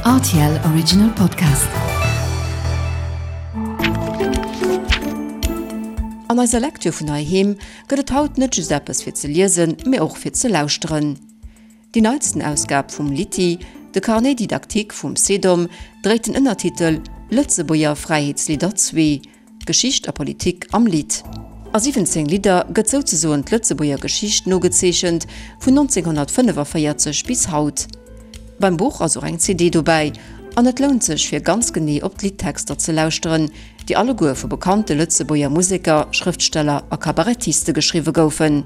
Rtl Original Podcast. An eiser Lektür vun heiheem gëtt et haut net just eppes fir ze liesen, mee och fir ze lauschteren. Déi neitsten Ausgab vum Litty, de Carnet didactique vum CEDOM, dréit den Ënnertitel Lëtzebuerger Fräiheetslidder zwee, Geschicht a Politik am Lidd. A 17 Lidder gëtt souzesoen d'Lëtzebuerger Geschicht nogezeechent, vun 1945 bis haut. Beim Buch ass och eng CD dobäi, an et lount sech fir ganz genee op d'Liddtexter ze lauschteren, déi alleguer vu bekannte Lëtzebuerger Museker, Schrëftsteller a Kabarettiste geschriwwe goufen.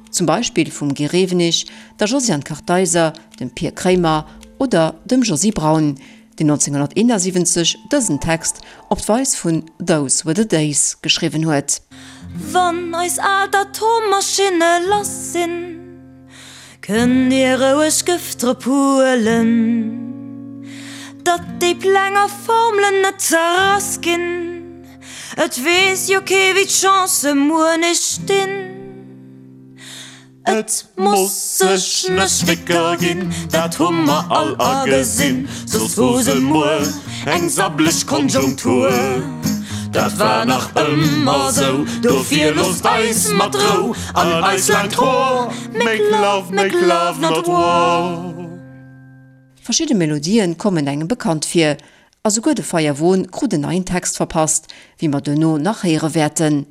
Zum Beispill vum Guy Rewenig, der Josiane Kartheiser, dem Pir Kremer oder dem Josy Braun, deen 1971 dësen Text op d'Weis vun Those Were the Days geschriwwen huet. Wann eis al d'Atommaschinne lass sinn, kënnt dir roueg Gëft drop huelen, datt déi Pläng a Formelen net zerrass ginn. Et weess jo kee wéi d'Chancë muer nees stinn. Et muss sech ne Schwécker ginn, dat hu mer all agesinn, soss hu se muer eng sabbleg Konjunktur. Dat war nach ëmmer sou, dofir loosst eis mat Rou an eis laangt Hoer, make love, make love not war. Verschidde Melodien kommen engem bekannt vir, a souguer de Feierwon krut en neien Text verpasst, wéi mer duerno nach héiere wäerten.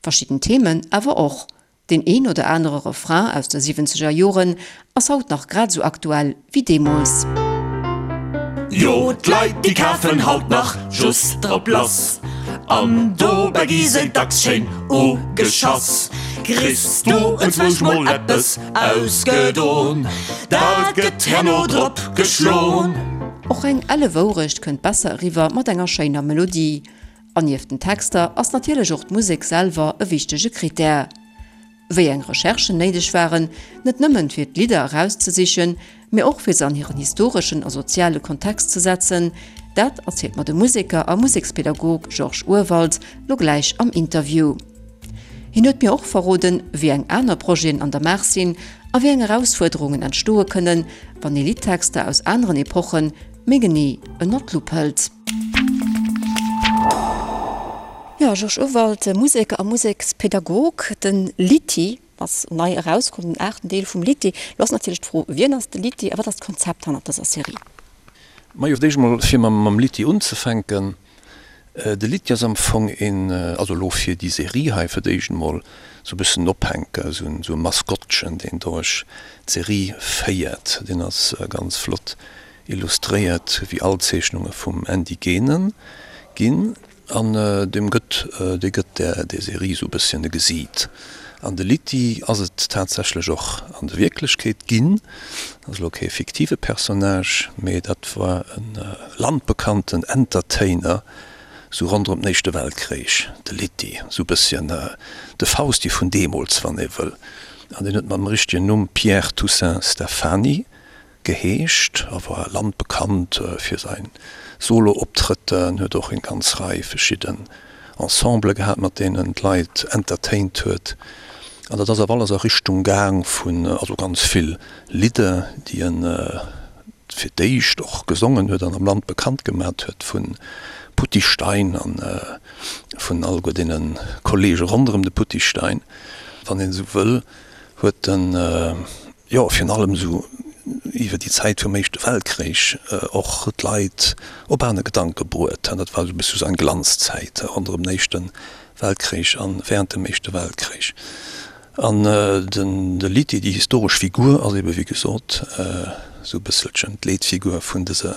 Verschidden Themen awer och. Deen een oder anere Refrain aus de siwwenzeger Joren ass haut nach grad esou aktuell wéi deemools. Jo, d'Leit déi kafen haut nach just drop lass an dobäi gi se dacks schéin ugeschass. Kriss du enzwousch mol eppes ausgedon, dat gëtt herno drop geschlon. Och eng elle Wourecht kënnt besser eriwwer mat enger schéiner Melodie. An nieft den Texter ass natierlech och d'Musek selwer e wichtege Critère. Wéi eng Recherchen néideg waren, net nëmmen fir d'Lidder erauszesichen, mee och fir se an hiren historeschen a soziale Kontext ze setzen, dat erzielt mer de Museker a Musekspedagog Georges Urwald lo gläich am Interview. Hien huet mir och verroden, wéi eng aner Projeten an der Maach sinn a wéi eng Erausfuerderungen entstoe kënnen, wann ee Liddtexter aus aneren Epoche méi genee ënner d'Lupp hëlt. Jo, Georges Urwald, Museker a Musekspedagog. De Litty ass nei erauskomm, den aachten Deel vum Litty. Lo ass natierlech d'Fro, Wien ass de Litty a wat ass d'Konzept hannert dëser Serie? Majo, fir d'éischt emol, fir mam Litty unzefänken, De Litty ass am Fong een, also elo fir déi Serie hei fir d'éischt emol, esou e bëssen en Ophänker, esou e Maskottchen, deen duerch d'Serie féiert. Deen ass ganz flott Illustréiert wéi all Zeechnunge vum Andy Genen ginn an deem gëtt dee gëtt där der Serie sou bësschen e Gesiit. An de Litty ass et tatsächlech och an der Wierklechkeet ginn, ass elo kee fiktive Personnage, mee dat war e landbekannten Entertainer sou ronderëm den Éischte Weltkréich, de Litty, sou bësschen de Fausti vun deemools, wann ee wëll. An deen huet mam richtegen Numm Pierre Toussaint Stephany. Geheescht a war landbekannt fir säin Solo-Optrëtter. En huet och eng ganz Rei verschidden Ensembele gehat, mat deenen en d'Leit entertaint huet. An dat ass awer alles a Richtung gaang vun, also ganz vill Lidder, déi en fir d'éischt och gesongen huet an am Land bekannt gemat huet, vu Putty Stein an vun alleguer deene Kollege ronderëm de Putty Stein, wann een esou wëll, huet en. jo virun allem esou iwwer déi Zäit vum Éischte Weltkréich och d'Leit op aner Gedanke bruet. Dat war esou e bësse sou eng Glanzzäit ronderëm den Éischte Weltkréich a während dem Éischte Weltkréich. An den de Litty, déi historesch Figur, ass ebe wéi gesot esou e bësselchen d'Leetfigur vun dëser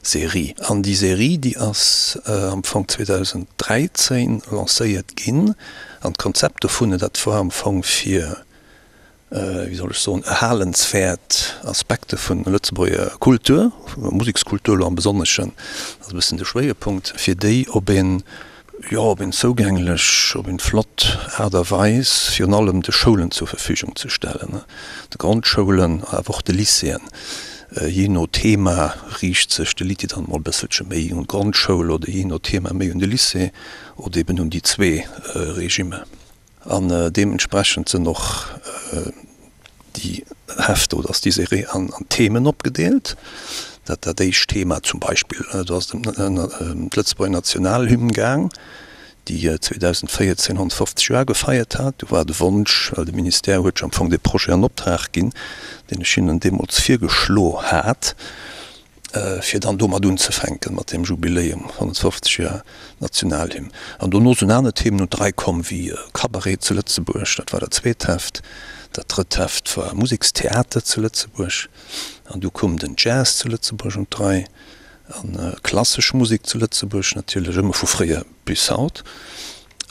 Serie. An déi Serie, déi ass am Fong 2013 lancéiert ginn. An d'Konzept dovun, dat war am Fong fir wéi soll ech soen, erhalenswäert Aspekte vun Lëtzebuerger Kultur, Musekskultur elo am Besonneschen, dat ass e bëssen de Schwéierpunkt, fir déi op een, jo, op een zougänglech, op een flott Aart a Weis virun allem de Schoulen zur Verfügung ze stellen, de Grondschoulen, awer och de Lycéeën. Jee no Thema riicht sech de Lycée dann emol e bësselche méi un d'Grondschoul oder jee no Thema méi un de Lycée oder eben un déi zwee Regimer. An deementsprechend sinn och déi Hefter oder ass déi Serie an Themen opgedeelt. Dat dat éischt Thema zum Beispill, do ass et ëm d'Lëtzebuerger Nationalhymn gaang, déi 2014 150 Joer gefeiert hat. Do war de Wonsch, well de Ministère huet jo am Fong dee Projet an Optrag ginn, deen ech hinnen deemools virgeschlo hat, fir dann domat unzefänken, mat deem Jubiläum 150 Joer Nationalhymn. An dono sinn aner Themen un d'Rei komm, wéi Cabaret zu Lëtzebuerg, dat war dat zweet Heft. Dat drëtt Heft war Musekstheater zu Lëtzebuerg. An du koum den Jazz zu Lëtzebuerg un d'Rei a klassesch Musek zu Lëtzebuerg natierlech, ëmmer vu fréier bis haut.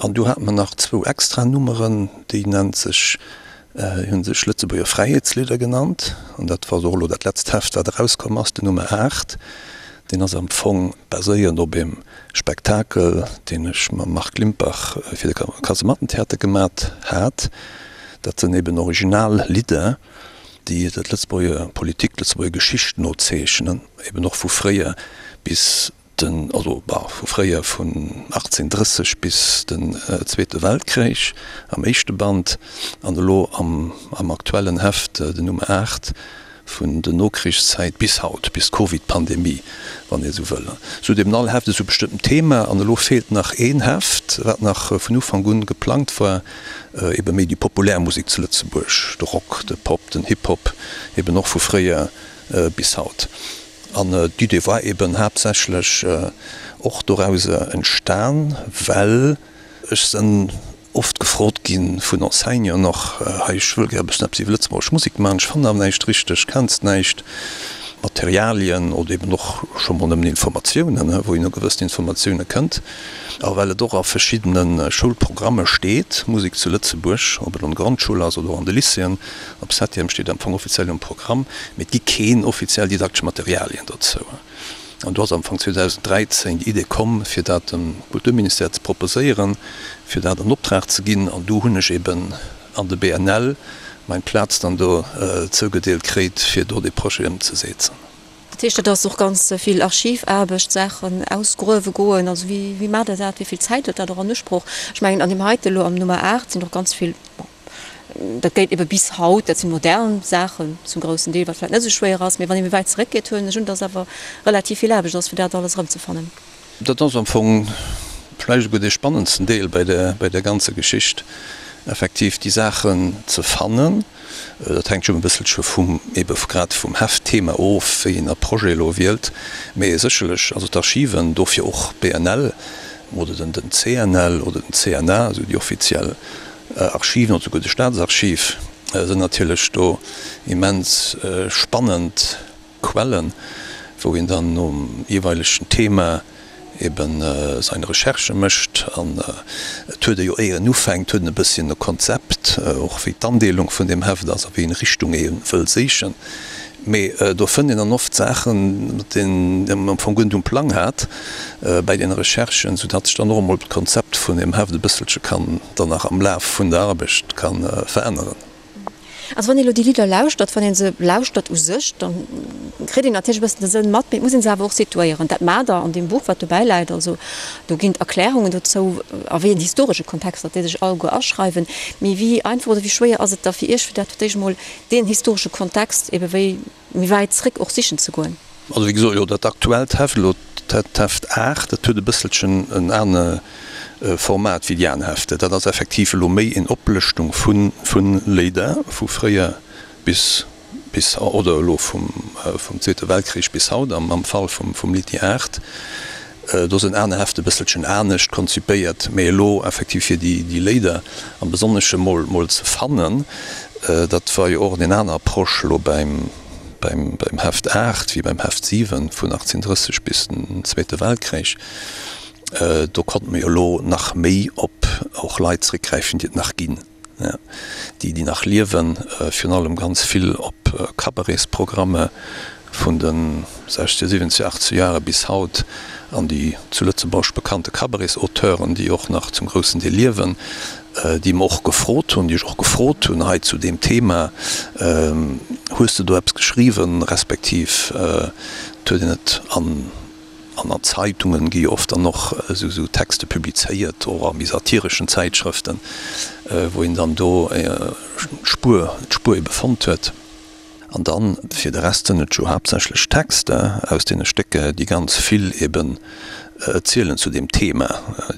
An du hate mer nach zwou extra Nummeren, déi nennt sech, hunn sech Lëtzebuerger Fräiheetslidder genannt. An dat war och elo dat letzt Heft, wat erauskomm ass, den Nummer 8. Deen ass am Fong baséierend op eem Spektakel, deen ech mam Marc Limpach fir de Kasemattentheater gemat hat. Dat sënn eben original Lidder, déi d'Lëtzebuerger Politik, d'Lëtzebuerger Geschicht nozeechnen, eben och vu fréier bis den, also bah, vu fréier vun 1830 bis den Zweete Weltkrich am éischte Band an elo am am aktuellen Heft, den Nummer 8, vun der Nokrichszäit bis haut, bis d'Covid-Pandemie, wann ee sou wëll. Sou huet eben all Heft esou e bestëmmtent Thema an elo feelt nach een Heft, wat nach vun Ufank un geplangt war, ebe méi déi populär Musek zu Lëtzebuerg, de Rock, de Pop, den Hip-Hop, eben och vu fréier bis haut. An d'Idee war eben haaptsächlech och dorauser entstan, well ech sënn oft gefrot gi vun Enseignanten och, hei ech wëll gär e bëssen eppes iwwer lëtzebuergesch Musek maachen, ech fannen awer näischt richteg, kenns näischt, Materialien oder eben och scho mol nëmmen Informatiounen, wou een u gewëssen Informatioune kënnt. A well et och a verschiddene Schoulprogramme steet, Musek zu Lëtzebuerg, ob et an der Grondschoul ass oder och an de Lycéeën, Op Septième steet am Fong offiziell um Programm, mee et gi keen offiziell didaktesch Materialien dozou. An do ass am Fong 2013 déi Idee komm, fir dat dem Kulturministère ze proposéieren, fir dat an Optrag ze ginn. An du hunn ech eben an de BNL meng Plaz dann do zougedeelt kréit, fir do dee Projet ëmzesetzen. Dat heescht, dat ass och ganz vill Archivaarbecht, Saachen ausgruewe goen. Also wéi, wéi maacht Der dat? Wéi vill Zäit huet dat och an Usproch? Ech mengen, an deem heite elo am Nummer 8 sinn och ganz vill, bon, dat geet ebe bis haut, dat si modern Saachen zum groussen Deel, wat vläicht net esou schwéier ass, mee wann ee méi wäit zeréckgeet, huelen ech un, dass awer relativ vill Aarbecht ass, fir dat alles erëmzefannen. Dat ass am Fong vläicht esouguer dee spannendsten Deel bei der, bei der ganzer Geschicht, effektiv déi Saachen ze fannen. Dat hänkt jo e bësselche vum, ebe grad vum Heftthema of, wéi een e Projet elo wielt. Mee sécherlech, also d'Archiven, dofir och BNL oder den CNL oder den CNA, also déi offiziell Archiven oder souguer de Staatsarchiv, sinn natierlech do immens spannend Quellen, wou een dann nom jeeweilegen Thema eben seine Recherchë mécht. An et huet e jo, éier en ufänkt, huet en e bësschen e Konzept, och wéi d'Andeelung vun deem Heft ass a wéi eng Richtung ee wëll séichen. Mee do fënnt een dann oft Saachen, mat deenen een am Fong guer net um Plang hat bäi deene Recherchen, soudatt sech dann och emol d'Konzept vun deem Heft e bësselche kann dann nach am Laf vun der Arbecht ka veränneren. Also wann ee lo déi Lidder lauschtert, wann ee se lauschtert u sech, da kritt een natierlech e bëssen de Sënn mat, mee et muss ee se awer och situéieren. Dat maacht Der an deem Buch, wat dobäi läit. Also do ginn d'Erklärungen dozou, a wéi en historesche Kontext datt déi sech alleguer aschreiwen. Mee wéi einfach oder wéi schwéier ass et da fir Iech, fir dat fir d'éischt emol deen historesche Kontext ebe wéi méi wäit zréck och sichen ze goen? Also wéi gesot, jo dat aktuellt Heft elo, d'Heft 8, dat huet e bësselchen en ane Format wéi déi aner Hefter. Dat ass effektiv elo méi en Oplëschtung vu vu Léider vu fréier bis bis oder elo vum vum Zweete Weltkrich bis haut am am Fall vum vum Litty 8. Do sinn aner Hefte e bësselchen anescht konzipéiert, mee elo effektiv fir déi déi Léider am Besonnesche mol mol ze fannen, dat war jo och en aner Approche elo beim beim beim Heft 8 wéi beim Heft 7 vun 1830 bis den Zweete Weltkrich. Do konnte mer jo elo nach méi op och Leit zréckgräifen, déi et nach ginn, déi déi nach liewen, virun allem ganz vill op Cabaretsprogramme vun de 60er, 70er, 80er Jahre bis haut an déi zu Lëtzebuerg bekannte Cabaretsauteuren, déi och nach zum groussen Deel liewen, déi mer och gefrot hunn, déi ech och gefrot hunn hei zu deem Thema, Hues de do eppes geschriwwen, respektiv et huet een et an An an Zeitungen gi jo oft dann och esou Texte publizéiert, och a méi satireschen Zäitschrëften, wou een dann do d'Spuer, d'Spuer ebe fonnt huet. An dann, fir de Rest sënn et jo haaptsächlech Texter aus deene Stécker, déi ganz vill eben zielen zu deem Thema,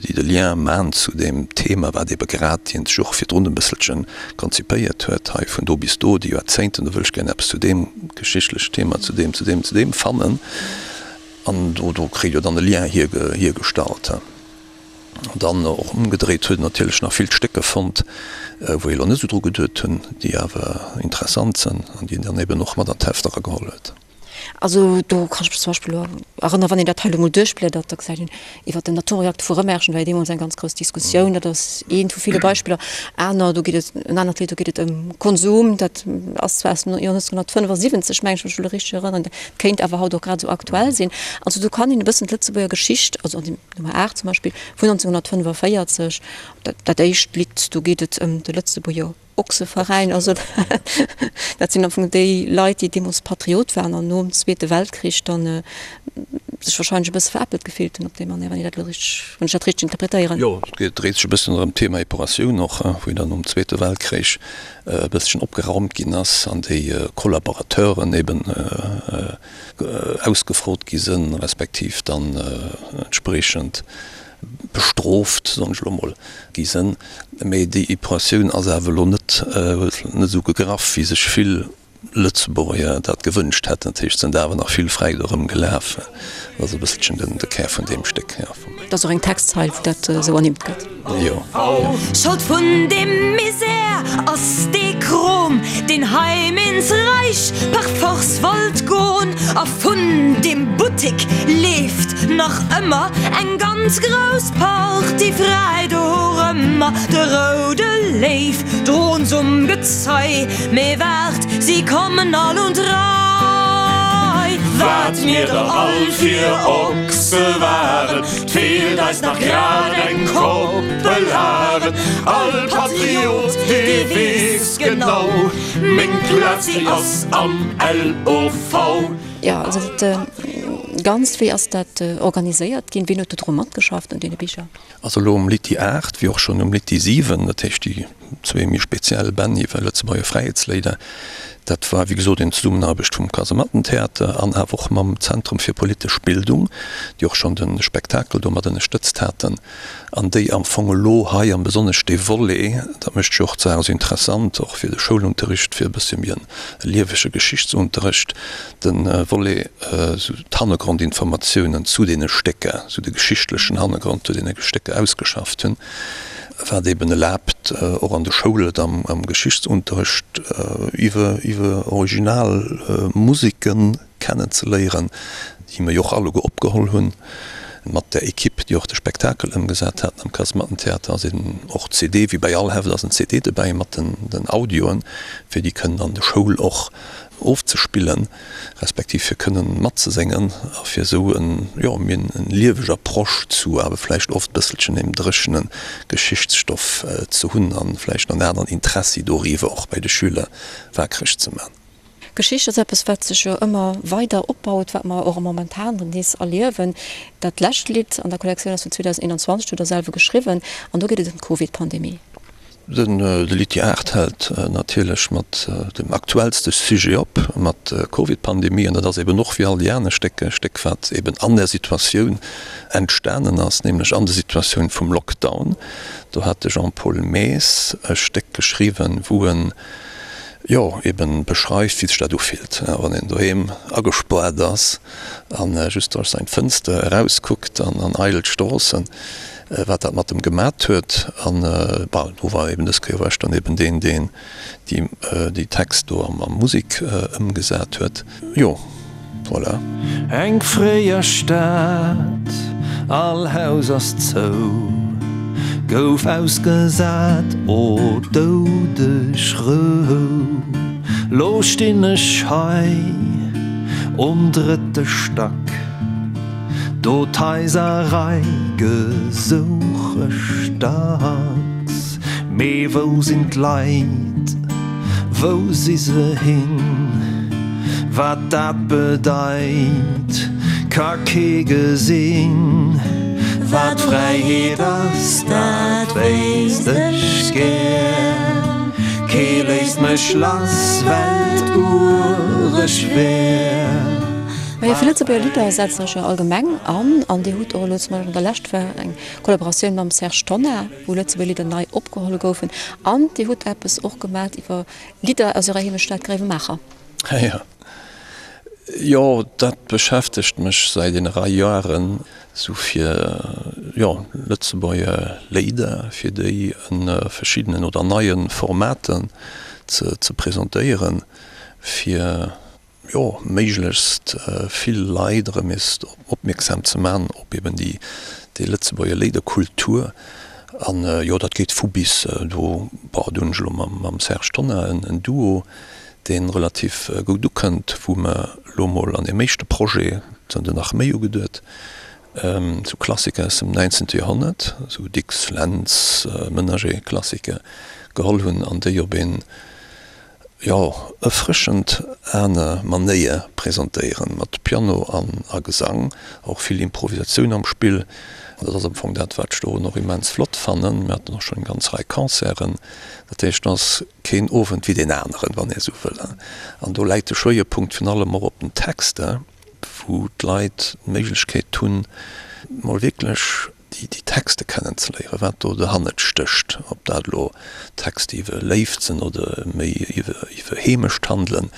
déi de Lien man zu deem Thema, wat ebe grad hien sech och virdrun e bësselche konzipéiert huet, hei vun do bis do, déi Joerzéngten, do wëll ech gär eppes zu deem geschichtlechen Thema, zu deem, zu deem, zu deem fannen. An do, do kritt jo dann e Lien hiergestallt. An dann och ëmgedréit huet en natierlech nach vill Stécker fonnt, wou ee lo net esou dru geduet hunn, déi awer interessant sënn an déi en dann eben och mat an d'Heft erageholl huet. Also do kann ech mech zum Beispill elo erënneren, wann een dat hei elo mol duerchbliedert, da gesäit een iwwert den Atomreakter vu Rëmerschen war jo deemools eng ganz grouss Diskussioun. Dat ass eent vu ville Beispiller. Aner, do geet et, en anert Lidd, do geet et ëm Konsum, dat ass zwar aus dem Joer 1975, meng ech mech elo richteg erënneren, dat kéint awer haut och grad esou aktuell sinn. Also do kann een e bëssen d'Lëtzebuerger Geschicht, also an dem Nummer 8 zum Beispill vun 1945, dat, dat éischt Lidd, do geet et ëm de Lëtzebuerger Ochseveräin. Also dat sinn am Fong déi Leit, déi deemools Patriot waren an nom Zweete Weltkrich dann sech wahrscheinlech e bësse veräppelt gefillt hunn op déi Manéier, wann ech dat elo richteg, wann ech dat richteg interpretéieren. Jo, et dréit sech e bëssen ëm d'Thema Epuratioun och, wou dann nom Zweete Weltkrich e bësschen opgeraumt ginn ass an déi Kollaborateuren eben ausgefrot gi sënn, respektiv dann entspriechend bestrooft, soen ech elo mol, gi sënn. Mee déi Epuratioun ass awer elo net, huet net esou gegraff, wéi sech vill Lëtzebuerger dat gewënscht hätten. Dat heescht, et sënn awer nach vill fräi do erëmgelaf. Dat ass e bësselchen den de Kär vun deem Stéck, jo. Et ass och eng Textzeil, wou dat esou ernimmt gëtt. Jo. Schold vun deem Misär ass dee Krom, deen heim ins Reich par force wollt gon. A vun deem Buttik leeft nach ëmmer eng ganz grouss Partie fräi dorëmmer. De roude Léiw droens um Gezei, mee waart, si kommen all un d'Rei. Wat mir der all fir Ochse waren, 't feelt eis nach grad eng Koppel Haren. All Patriot, dee weess genau, meng Plaz, déi ass am LOV. Jo, also dat Ganzt, wéi ass dat organiséiert ginn? Wien huet do dru matgeschafft un deene Bicher? Also elo um Litty 8, wéi och schonn um Litty 7, dat heescht déi zwee méi speziell Bänn iwwer Lëtzebuerger Fräiheetsléider, dat war wéi gesot eng Zesummenaarbecht vum Kasemattentheater an awer och mam Zentrum fir politesch Bildung, déi och schonn de Spektakel do mat ënnerstëtzt haten an déi am Fong elo hei am besonnesch dee Volet, dat mécht jo och d'Saach esou interessant, och fir de Schoulunterricht, fir e bëssche méi e liewege Geschichtsunterricht, De Volet esou d'Hannergrondinformatiounen zu deene Stécker, esou de geschichtlechen Hannergrond zu deene Stécker ausgeschafft hunn, wat eben erlaabt, och an de Schoule et am Geschichtsunterrecht iwwer iwwer original Museke kennenzeléieren, déi mer jo och alleguer opgeholl hunn mat der Equipe, déi och de Spektakel ëmgesat haten am Kasemattentheater. Ass eben och CD, wéi bei all Heft ass en CD dobäi mat den Audioen, fir déi kënnen an de Schoul och ofzespillen, respektiv fir kënnen matzeséngen a fir esou en, jo, méi en lieweg Approche zu awer vläicht oft bësselchen deem dréchene Geschichtsstoff ze hunn an vläicht en aneren Interessi doriwwer och bei de Schüler waakreg ze man. Geschicht ass eppes, wat sech jo ëmmer weider opbaut, wat mer och momentan nees erliewen. Dat lescht Lidd an der Kollektioun ass vun 2021, dat hutt Der selwer geschriwwen, an do geet et ëm d'Covid-Pandemie. De Litty 8 hält natierlech mat dem aktuellste Sujet op, mat der Covid-Pandemie. An dat ass eben och wéi all déi aner Stécker e Stéck, wat eben an där Situatioun entstanen ass, nämlech an der Situatioun vum Lockdown. Do hat de Jean-Paul Maes e Stéck geschriwwen, wou en, jo, eben beschreift, wéi sech dat ufillt, wann een doheem agespaart ass a just duerch seng Fënster erauskuckt an an eidel Stroossen. wat dat mat em gemat huet. An bon, do war eben dës Kéier war ech dann eben deen, deen déi déi Text do a Musek ëmgesat huet. Jo, voilà. Eng fréier Stad, all Haus ass zou, gouf ausgesat, o doudeg Rou. Lo stinn ech hei um drëtte Stack. Do d'Haiserrei gesouch ech dacks, mee wou sinn d'Leit, wou si se hin? Wat dat bedeit, ka kee gesinn. Wat Fräiheet ass, dat wéisst ech gär. Kee léisst mech lass, well 't ureg wär. Majo, fir Lëtzebuerger Lidder setzt Der Iech jo allgemeng an. An Dir hutt och elo zum Beispill an der Lescht war eng Kollaboratioun mam Serge Tonnar, wou Lëtzebuerger Lidder nei opgeholl goufen. An Dir hutt eppes och gemat iwwer Lidder aus Ärer Heemechtsstad Gréiwemaacher. Jo, jo, dat beschäftegt mech säit enger Rei Joeren, sou fir, jo, Lëtzebuerger Léider, fir déi en verschiddenen oder neie Formaten ze ze presentéieren, fir, jo, méiglechst vill Leit erëm nees opmierksam ze man op eben déi déi Lëtzebuerger Léiderkultur. An, jo, dat geet vu bis. Do, bon, do hunn ech elo mam mam Serge Tonnar en en Duo, dee relativ goud ukënnt, wou mer elo mol an deem éischte Projet, et sinn der nach méi ugeduet, sou Klassiker aus dem 19. Joerhonnert, sou Dicks, Lentz, Menager-Klassiker geholl hunn an déi op een, jo, erfrëschend aner Manéier presentéieren, mat Piano an a Gesang, och vill Improvisatioun am Spill. An dat ass am Fong dat, wat ech dorun och immens flott fannen. Mir haten och schonn eng ganz Rei Concerten, dat heescht, et ass keen Owend wéi deen aneren, wann ee sou wëll. An do läit de Schwéierpunkt virun allem och op den Texter, wou d'Leit d'Méiglechkeet hunn, mol wierklech déi Texte kennenzeléieren, wat do derhannert stécht, ob dat elo Texte iwwer Léift sinn oder méi iwwer Heemecht handelen.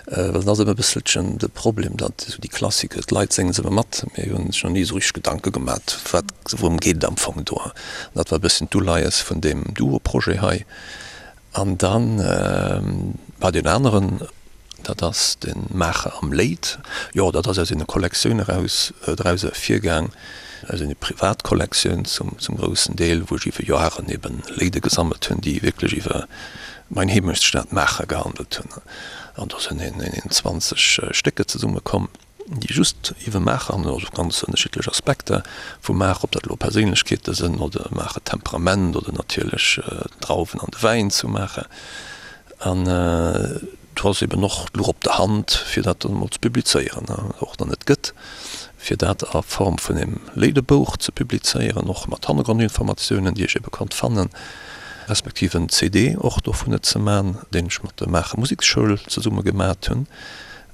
Well et ass ëmmer e bësselchen de Problem, datt esou déi Klassiker, d'Leit sénge se ëmmer mat, mee hunn sech nach ni esou richteg Gedanke gemat, wat, wourëm geet et am Fong do. An dat war e bësschen d'Uleies vun deem Duo-Projet hei. An dann war deen aneren, dat ass de Maacher am Léit. Jo, dat ass aus ene Kollektioun eraus, draus ervirgaang, aus ene Privatkollektioun zum, zum groussen Deel, wou ech iwwer Joaren eben Léide gesammelt hunn, déi wierklech iwwer mein Heemechtsstad Maacher gehandelt hunn. An do sinn een, een 20 Stécker zesummekomm. déi just iwwer Maacher handelen, also ganz ënnerschiddlech Aspekter vu Maacher, ob dat elo Perséinlechkeete sënn oder Maacher Temperament oder natierlech d'Drauwen an de Wäin zu Maacher. An do ass eben och d'Luch op der Hand, fir dat dann emol ze publizéieren, och dann et gëtt, fir dat a Form vun engem Léidebouch ze publizéieren, och mat Hannergrondinformatiounen, déi ech ebe konnt fannen, respektiv en CD och dovunner ze man, deen ech mat der Maacher Museksschoul zesumme gemat hunn.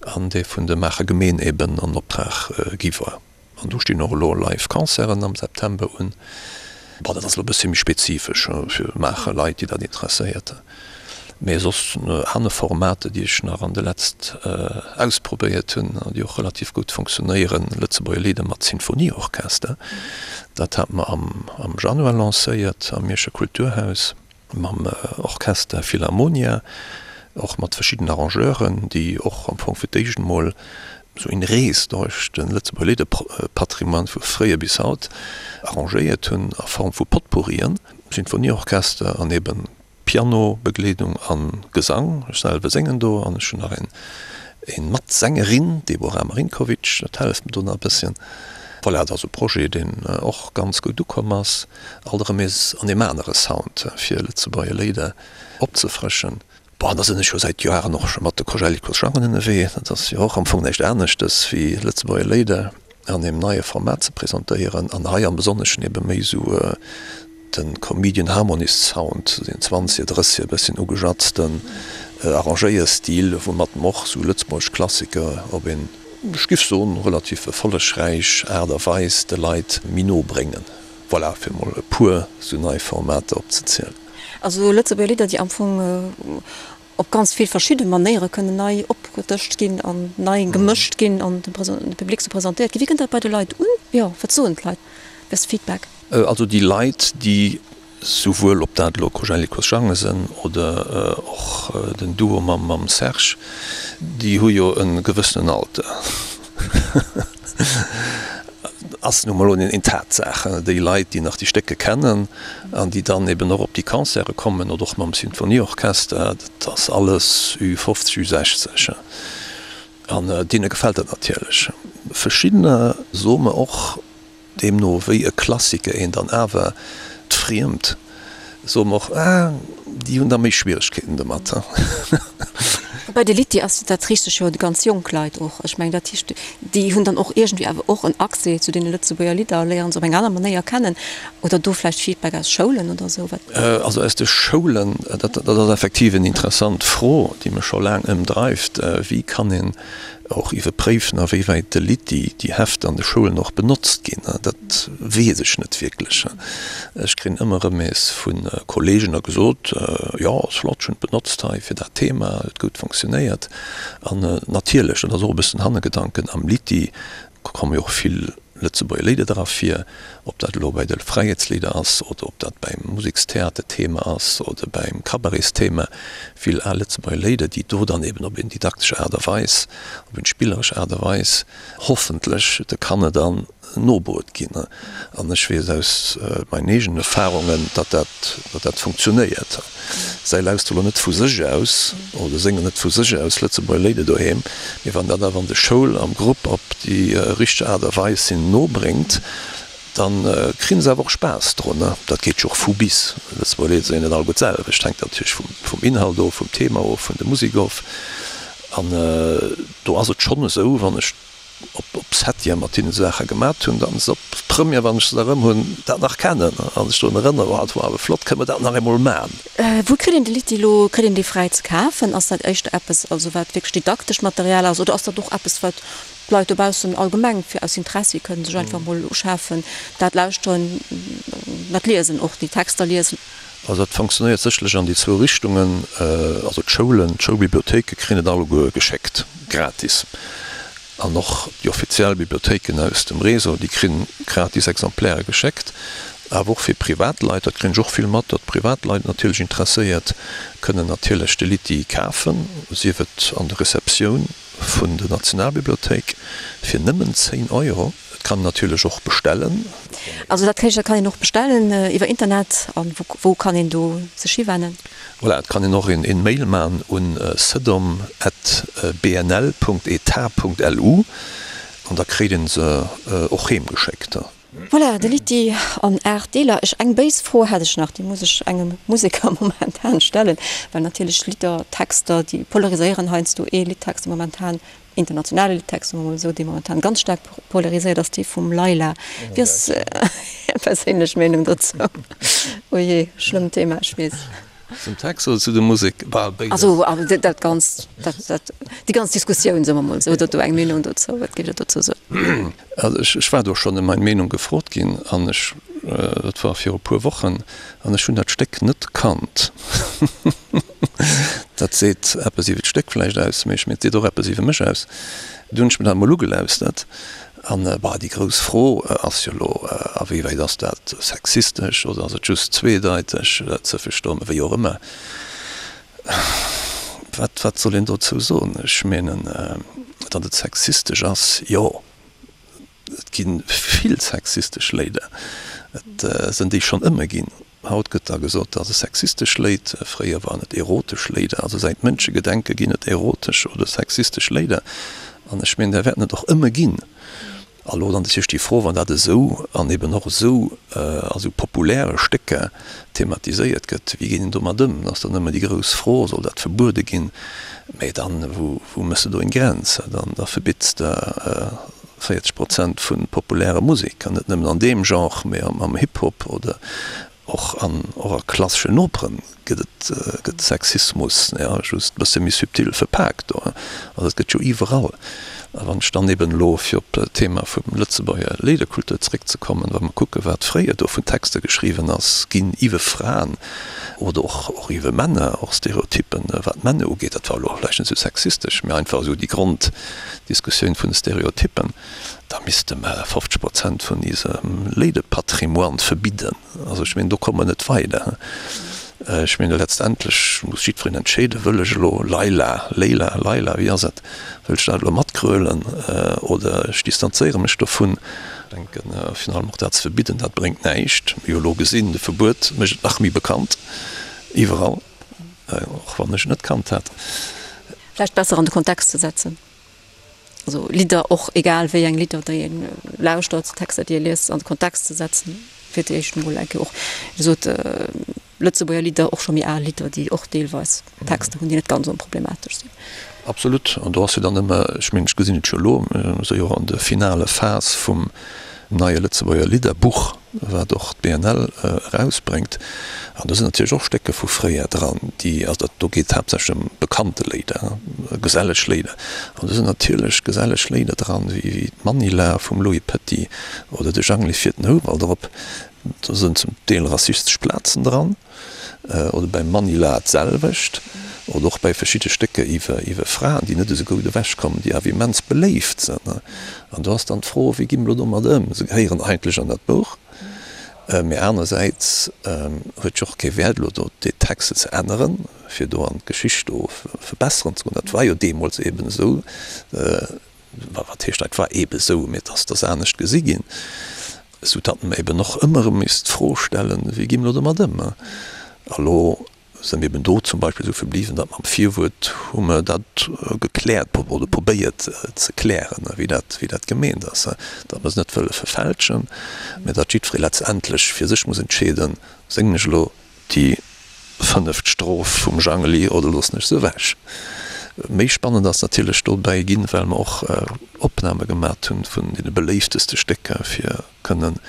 an dee vun der Maacher Gemeen eben an Optrag gi war. An do stinn och elo live Concerten am September un. Bon, dat ass elo e bëssi méi spezifesch fir Maacher Leit, déi dat interesséiert. Mee soss aner Formate, déi ech nach an de letzt ausprobéiert hunn an déi och relativ gutt funktionéieren, Lëtzebuerger Lidder mat Sinfonieorchester, dat hate mer am Januar lancéiert am Mierscher Kulturhaus. mam Orchester Philharmonia, och mat verschidden Arrangeuren, déi och am Fong fir d'éischt emol esou eng Rees duerch de Lëtzebuerger Lidderpatrimoine vu fréier bis haut arrangéiert hunn a Form vu Potpourrien, Sinfonieorchester an eben Pianobegleedung a Gesang. Ech selwer séngen do an ech hunn nach een Matsängerin, d'Deborah Marinkovic, dat helleft mir do nach e bësschen. Voilà, dat ass e Projet, deen och ganz gutt ukomm ass. Alt erëm nees an deem anere Sound fir Lëtzebuerger Léider opzefrëschen. Bon, da sinn ech jo säit Joaren och scho mat de Kojellikos Jangen ënnerwee. Dat ass jo och am Fong näischt aneschtes wéi Lëtzebuerger Léider an deem neie Format ze presentéieren an hei am Besonneschen ebe méi esou de Comedian Harmonist Sound, deen zwanzeger, drësseger e bësschen ugejatzten Arrangéierstil, woumat mer och esou lëtzebuergesch Klassiker op een, ech giff soen, relativ erfollegräich Aart a Weis de Leit méi no bréngen. Voilà, fir mol e puer sou nei Formater opzezielen. Also Lëtzebuerger Lidder, déi am Fong op ganz vill verschidde Manéiere kënnen nei opgedëscht ginn an nei gemëscht ginn an dem Public sou presentéiert ginn. Wéi kënnt dat bei de Leit un? Jo, wat soen d'Leit? Wéi ass de Feedback? Also déi Leit, déi Souwuel ob dat elo Kojellikos Jange sënn oder och den Duo mam Serge, déi hu jo e gewëssenen Alter. Ass nu mol eng Tatsaach. Déi Leit, déi nach déi Stécke kennen an déi dann eben och op déi Concerte kommen oder och mam Sinfonieorchester, dat ass alles Ü50, Ü60. An deene gefält dat natierlech. Verschiddener soe mer och, Deemno wéi e Klassiker een dann awer d'Friemt, soe mer och, ah, déi hunn da méi Schwieregkeeten domat. Woubäi de Litty ass, dat riicht sech jo u ganz jonk Leit och. Ech mengen, dat heescht, déi hunn dann och iergendwéi awer och en Accès zu deene Lëtzebuerger Lidder a léieren se op eng aner Manéier kennen. Oder do vläicht Feedback aus Schoulen oder esou? Wat? Also aus de Schoulen, dat ass effektiv en interessant Fro, déi mech scho laang ëmdreift, Wéi kann een och iwwerpréifen, a wéi wäit de Litty, déi Hefter an de Schoulen och benotzt ginn? Dat weess ech net wierklech. Ech kréien ëmmer erëm nees vu Kolleegen da gesot, Jo, ass flott, ech hunn et benotzt hei fir dat Thema, huet gutt funktionéiert. An natierlech, dat ass och e bëssen Hannergedanken, am Litty komme jo och vill Lëtzebuerger Léider dra vir, ob dat elo bei de Fräiheetslieder ass oder ob dat beim Musekstheaterthema ass oder beim Cabaretsthema, vill al Lëtzebuerger Léider, déi do dann eben op eng didaktesch Aart a Weis, op eng spilleresch Aart a Weis hoffentlech de Kanner dann nobruet ginn. An ech weess aus meinen eegenen Erfahrungen, datt dat, datt dat funktionéiert. Säi lauschteren elo net vu sech aus oder séngen net vu sech aus Lëtzebuerger Léider doheem, mee wann dat awer an de Schoul am Grupp op déi richteg Aart a Weis hinnen nobréngt, da kréien se awer och Spaass drun. Dat geet jo och vu bis. Lëtzebuerger Léider sinn jo net alleguer d'selwecht, hänkt natierlech vum Inhalt of, vum Thema of, vun der Musek of. An do ass et schonn esou, wann ech op op Septième mat hinne Saache gemat hunn, dann se op Première, wann ech se da rëm hunn, dat nach kennen a sech drun erënneren, oh dat war awer flott, kënne mer dat nach eemol man? Wou kritt een de Litty elo? Kritt een dee fräi ze kafen? Ass dat éischter eppes, also wat wierklech didaktescht Material ass, oder ass dat och eppes, wat d'Leit dobaussen allgemeng fir aus Interessi kënnen sech einfach mol uschafen, dat lauschteren, dat liesen, och déi Texter liesen? Also dat funktionéiert sécherlech an déi zwou Richtungen. Also d'Schoulen, d'Schoulbibliothéike kréien et alleguer geschéckt, gratis. An och déi offiziell Bibliothéiken aus dem Réseau, déi kri gratis Exemplaire geschéckt. Awer och fir Privatleit, dat kréien ech och vill mat, datt Privatleit natierlech interesséiert kënnen natierlech de Litty kafen, sief et an der Receptioun vun der Nationalbibliothéik fir nëmmen 10 Euro. Et kann een natierlech och bestellen. Also dat heescht, dat kann een och bestellen iwwer Internet. A wou kann een do sech hiwennen? Voilà, et kann een och een Mail man un cedom at bnl Punkt etat Punkt lu an da kréit een se och heem geschéckt. Voilà, de Litty an 8 Deeler. Ech, eng béis Fro hätt ech nach, déi muss ech engem Museker momentan stellen, well natierlech Lidder, Texter, déi polariséieren heiansdo. Ee Liddtext, dee momentan, internationale Liddtext, soe mer mol esou, dee momentan ganz staark polariséiert, ass dee vum Layla. Wéi ass Är perséinlech Meenung dozou? Oh jee, schlëmmt Thema, ech weess. Zum Text oder zu der Musek? Bal béides. Also dat ganz, dat, dat, déi ganz Diskussioun, soe mer mol esou. Hutt Der do eng Meenung dozou? Wat géift Der dozou soen? Also ech, ech war do schonn ëm meng Meenung gefrot ginn an ech, dat war viru puer Wochen, an ech hunn dat Stéck net kannt. Dat seet eppes iwwer d'Stéck vläicht aus, mee ech mengen, et seet och eppes iwwer mech aus. Du hunn ech mir dat emol ugelauschtert an, bah, déi grouss Fro ass jo elo, a wéi wäit ass dat sexistesch oder ass et just zweedeiteg ze verstoen, wéi och ëmmer. Wat, wat soll een dozou soen? Ech mengen, datt et sexistesch ass, jo. Et gi vill sexistesch Léider. Et sënn déi schonn ëmmer ginn. Haut gëtt da gesot, dat ass e sexistesch Léid. Fréier waren et erotesch Léider. Also säit Mënschegedenke ginn et erotesch oder sexistesch Léider. An ech mengen, där wäerten et och ëmmer ginn. A lo dann natierlech déi Fro, wann dat esou an eben och esou a sou populäre Stécker thematiséiert gëtt, wéi geet een domat ëm? Dat ass dann ëmmer déi grouss Fro, Soll dat verbuede ginn? Mä dann, wou méchs de do eng Grenz? Dann da verbitts de 40 Prozent vu populärer Musek, an net nëmmen an deem Genre, mee am Hip-Hop oder och an och a klasseschen Operen gëtt et gëtt Sexismus, jo, just e bësse méi subtil verpaakt do. Also et gëtt jo iwwerall. A wann ech dann eben elo, fir op d'Thema vum Lëtzebuerger Léiderkultur zeréckzekommen, wa mer kucke wat fréier do vun Texter geschriwwen ass ginn iwwe Fraen oder och och iwwe Männer, och Stereotyppen wat d'Männer ugeet, dat war elo vläicht net esou sexistesch, mee einfach esou déi Grond, Diskussioun vun de Stereotyppen, da misste mer 50 Prozent vun isem Léidepatrimoine verbidden. Also ech mengen, do komme mer net weider. Ech mengen, letztendlech muss jiddwereen entscheeden, Wëll ech elo Laila, Leila, Laila, wéi ass et, wëll ech dat elo matgrölen oder ech distanzéiere mech dovun? Ech denken, virun allem och dat ze verbidden, dat bréngt näischt. Mir hu elo gesinn, de Verbuet mécht et nach méi bekannt iwwerall. Och wann ech et net kannt hätt. Vläicht besser an de Kontext ze setzen. Also Lidder, och egal wéi eng Lidder, déi ee lauschtert, Texter, déi ee liest, an de Kontext ze setzen, fir d'éischt emol eng Kéier och, wéi gesot, Lëtzebuerger Lidder, och scho méi al Lidder, déi och deelweis Texter hunn, déi net ganz onproblematesch sinn. Absolut. An do ass jo dann ëmmer, ech mengen, ech gesinn et jo elo, mir si jo och an der finale Phas vum neie Lëtzebuerger Lidderbuch, wat och d'BNL erausbréngt. An do sinn natierlech och Stécker vu fréier dran, déi, also dat do geet haaptsächlech ëm bekannte Léider, geselleg Léider. An do sinn natierlech geselleg Léider dran, wéi d'Manila vum Louis Petit oder de Jangli fiert den Houwald erop. Do sinn zum Deel rassistesch Plazen dran. Oder beim Manila d'selwecht. Oder och bei verschidde Stécker iwwer iwwer Fraen, déi net esou goud ewechkommen, déi awer immens beléift sinn. An do ass dann d'Fro, wéi gi mer elo domat ëm? Se gehéieren eigentlech an dat Buch, mee anersäits huet jo och kee Wäert elo do déi Texte ze änneren, fir do an d'Geschicht do verbesseren ze goen. Dat war jo deemools eeben esou. Wat heescht dat war eebe sou, mee et ass dass anescht gesi ginn, sou datt mer eben och ëmmer erëm misst d'Fro stellen, wéi gi mer elo domat ëm? A lo si mir eben do zum Beispill esou verbliwwen, datt mer am Virwuert hu mer dat gekläert oder probéiert ze klären, wéi dat, wéi dat gemeent ass, datt mer se net wëlle verfälschen, mä datt jiddweree letztendlech fir sech muss entscheeden, Séngen ech elo Déi fënneft Stroph vum Jangeli oder loossen ech se ewech? Méi spannend ass natierlech dobäi ginn, well mer och Opname gemat hunn vun deene beléifteste Stécker, fir kënnen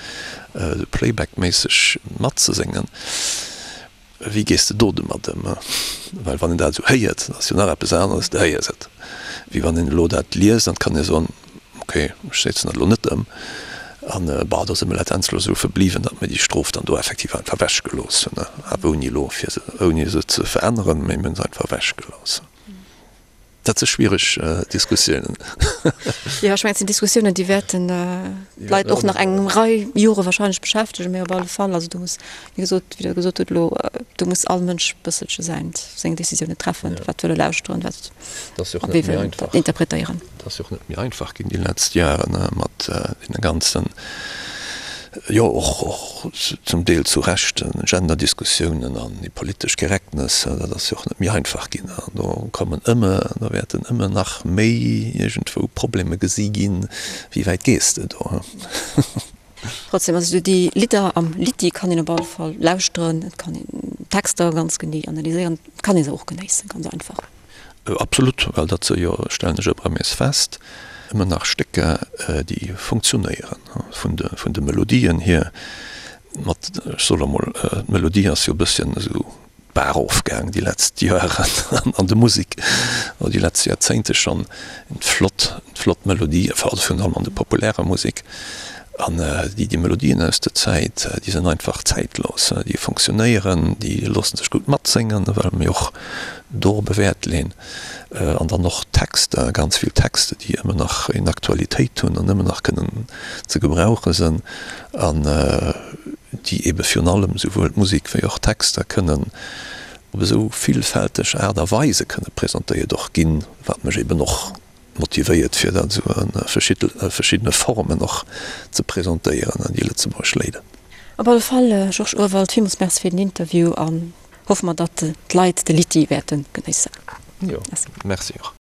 esou Playback-méisseg matzeséngen. Wéi gees de do domat ëm? Well wann een dat esou héiert, dat ass jo nach eppes aneres, du héiers et, wéi wann een elo dat liest an et kann ee soen, Ok, ech setzen dat elo net ëm. An bah, do si mer letztendlech elo esou verbliwwen, datt mir déi Strof dann do effektiv einfach ewechgelooss hunn, awer ouni elo fir se, ouni se ze veränneren, mee mir hunn se einfach ewechgelooss. Dat si schwiereg Diskussiounen. Jo, ech mengen, et sinn Diskussiounen, déi wäerten d'Leit och nach eng Rei Jore wahrscheinlech beschäftegen, mee op alle Fall, also do muss, wéi gesot, wéi Der gesot hutt elo, do muss all Mënsch e bësselche säin, seng Décisiounen treffen, wat wëll e lauschteren, wat, a wéi wëll en dat interpretéieren. Et ass jo och net méi einfach ginn déi letzt Jaren mat deene ganzen, jo och och zum Deel zu Recht, Genderdiskussiounen an déi politesch Correctness. Dat ass jo och net méi einfach ginn an do kommen ëmmer, do wäerten ëmmer nach méi iergendwou Probleme gesi ginn. Wéi wäit gees de do? Trotzdem, also déi Lidder am Litty kann een op alle Fall lauschteren, et kann een d'Texter ganz genee analyséieren, et kann ee se och genéissen, ganz einfach. Absolut, well dat se jo, stellen ech ëmmer nees fest, ëmmer nach Stécker, déi funktionéieren vun de, vun de Melodien hier. Mat, ech soe lo mol, d'Melodie ass jo e bësschen esou d'Baach erofgaang déi letzt Joeren an der Musek, oder déi letzt Joerzéngte schonn. Flott, flott Melodie, also virun allem an der populärer Musek. An déi, déi Melodien aus der Zäit, déi sinn einfach zäitlos, déi funktionéieren, déi loosse sech gutt matséngen, well mir och dorop e Wäert leen. An dann och d'Texter, ganz vill Texter, déi ëmmer nach eng Aktualitéit hunn an ëmmer nach kënnen ze gebrauche sinn an déi eebe virun allem souwuel d'Musek wéi och d'Texter kënnen op esou villfälteg Aart a Weise kënne presentéiert och ginn, wat mech eeben och motivéiert fir dat esou a verschiddene Formen och ze presentéieren an déi lëtzebuergesch Léider. Op alle Fall, Georges Urwald, villmools Merci fir den Interview an hoffe mer, datt d'Leit de Litty wäerte genéissen. Jo, Merci och.